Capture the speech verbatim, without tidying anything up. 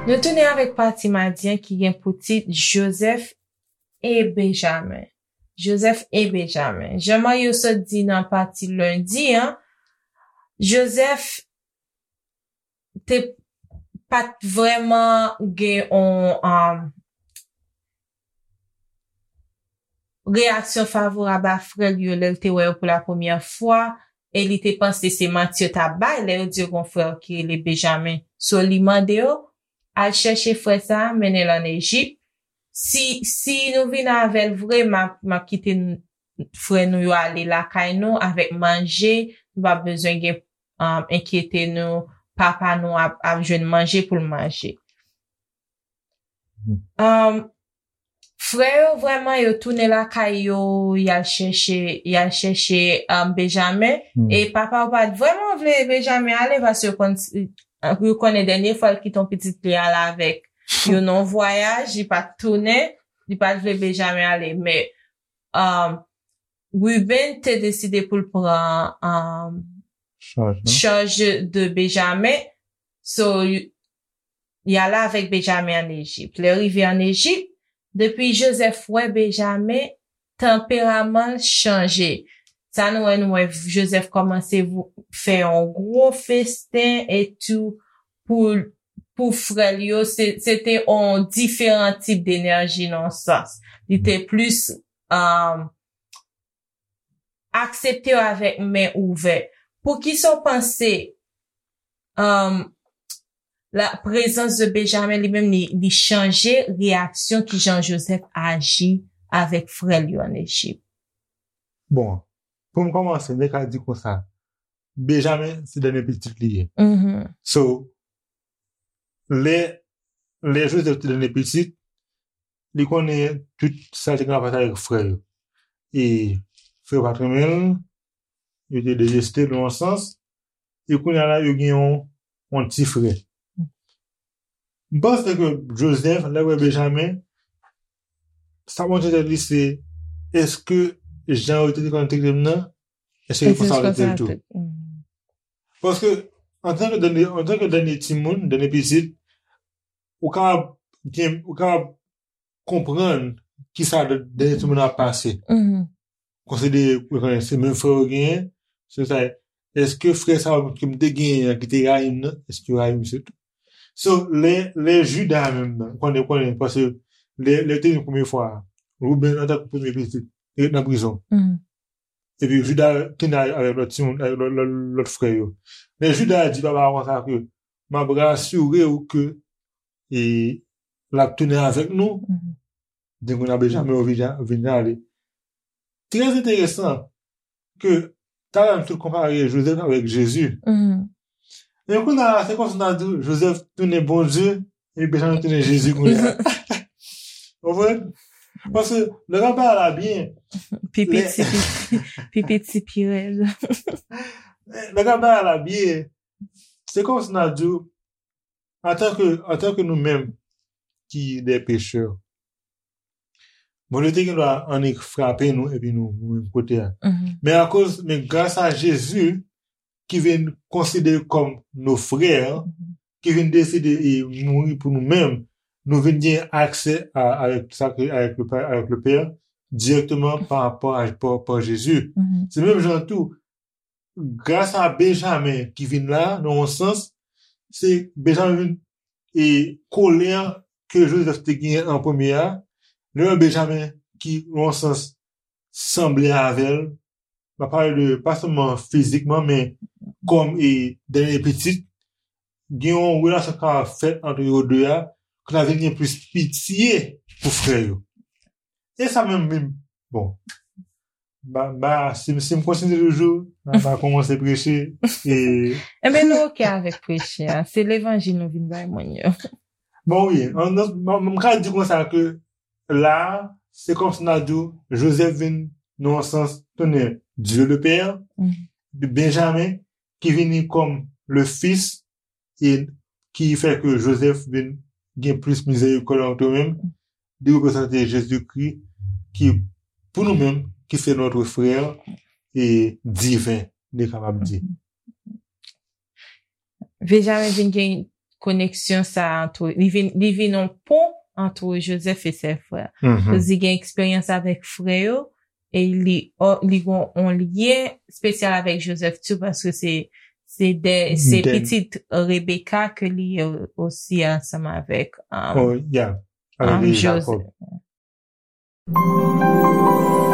Nou tounen avèk pati madi an ki gen pou tit Joseph e Benjamin. Joseph e Benjamin. Jan Mario sot di nan pati lendi an, Joseph te pa t vrèman gen yon um, reyaksyon favorab a frè l yo lè l te wè yo pou la premyè fwa, e li te panse se manti yo t ap bay lè yo di yo gen yon frè ki rele Benjamin. So, li mande yo, al chèche frè sa a, mennen l ann Ejip. Si, si nou vin avè l vre, m ap, m ap kite n- frè nou yo ale lakay nou avèk manje. Nou p ap bezwen gen um, enkyete nou. Papa nou ap, ap jwenn manje pou l manje. Um, frè yo vrèman yo tounen lakay yo, y al chèche, y al chèche um, Benjamin. E papa yo pa t vrèman vle Benjamin ale paske yo konn, yo konnen dènye fwa l kite yon pitit li al avèk yo nan yon vwayaj, li pa t tounen, li pa t vle Benjamin ale. Men um, Ruben te deside pou l pran um, Chaj, non? chaj de Benjamin. So, y- y ale avèk Benjamin ann Ejip. Lè rive ann Ejip, depi Joseph wè Benjamin, tanperaman l chanje. Sa nou wè, nou wè Joseph kòmanse vou- fè yon gwo festen etou pou pou frè l yo. Se se te yon diferan tip denèji nan yon sans. Li te plis um, aksepte yo avèk men ouvè. Poukisa w panse um, la prezans de Benjamin li menm li, li chanje reyaksyon ki jan Joseph aji avèk frè l yo ann Ejip? Bon, pou m kòmanse, m te ka di konsa, Benjamin se dènye pitit li ye. So, lè lè Joseph te dènye pitit, li konnen tout sa te gen rapò avèk frè yo. E frè yo pa t renmen l, yo te deteste l nan yon sans, e kounye a la yo gen yon, yon ti frè. M panse ke Joseph, lè wè Benjamin, sa montre tèt li se, èske jan yo te konn trete m nan, èske yo konsa yo trete l tou? Paske, antanke dènye, antanke dènye timoun, dènye pitit, ou kapab gen, ou kapab konprann kisa dènye timoun ap pase. Konsidere, ou konnen, se menm frè yo genyen, se sa, èske frè sa yo ke m te genyen an ki te rayi m nan, èske yo rayi m se tou? So, lè, lè Juda menm nan, ou konnen, ou konnen, paske lè, lè yo te vin premye fwa a, Ruben antanke premye pitit, li ret nan prizon. Epi Juda tounen avèk lòt timoun, avèk lòt, lòt, lòt frè yo. Men Juda di papa a konsa ke, m ap rasire w ke e, l ap tounen avèk nou. Depi kounye a Benjamin yo vin, vin ale. Trè enteresan ke talè a nou te konpare Joseph avèk Jezi. Men kounye a se kòmsi n a di Joseph tounen Bondye, epi Benjamin tounen Jezi kounye a. Konprann? Paske lè n ap bay la byen, Pi piti, pi, pi piti, pi rèd. Lè n ap bay la byen, se kòmsi n a di antanke, antanke nou menm ki de pechè, Bondye te gen dwa annik frape nou epi nou, nou menm kote a. Men akoz, men gras a Jezi ki vin konsidere kòm nos frères, ki vin deside e mouri pou nou menm, nou vin gen aksè a, avèk sa ke, avèk le Père, avèk le Père, direkteman pa rapò a, pa, pa Jezi. Se menm jan tou, gras a Benjamin ki vin la, nan yon sans, se Benjamin vin e kolè ke Joseph te genyen an premye a, lè Benjamin ki, nan yon sans, sanble avè l, m ap pale de, pa sèlman fizikman, men kòm e dènye pitit, gen yon relasyon k ap fèt ant yo de a, ke n a vin gen plis pitye pou frè yo. E sa menm, menm, bon, ba, ba, si, si m kontinye toujou, m a kòmanse preche. E... Enben, nou oke avèk preche a. Se levanjil nou vin bay moun yo. Bon, wi. M ka di konsa ke la, se kòmsi n a di Joseph vin, nan yon sans, tounen Dieu le Père, Benjamin, ki vini kòm le Fils, e ki fè ke Joseph vin gen plis mizerikòd ant yo menm, li reprezante Jezikri ki, pou nou menm, qui fait notre frère et divin, li kapab di. Benjamin vin gen koneksyon sa antre, li vin, li vin yon pon antre Joseph e sè frè. Mhm. Li gen eksperyans avèk frè yo, e li, li gen yon lyen espesyal avèk Joseph tou, paske se, se de, se De- pitit Rebecca ke li ye osi ansanm avèk, um, Oh, yeah. Avec um, les Joseph. Jacob.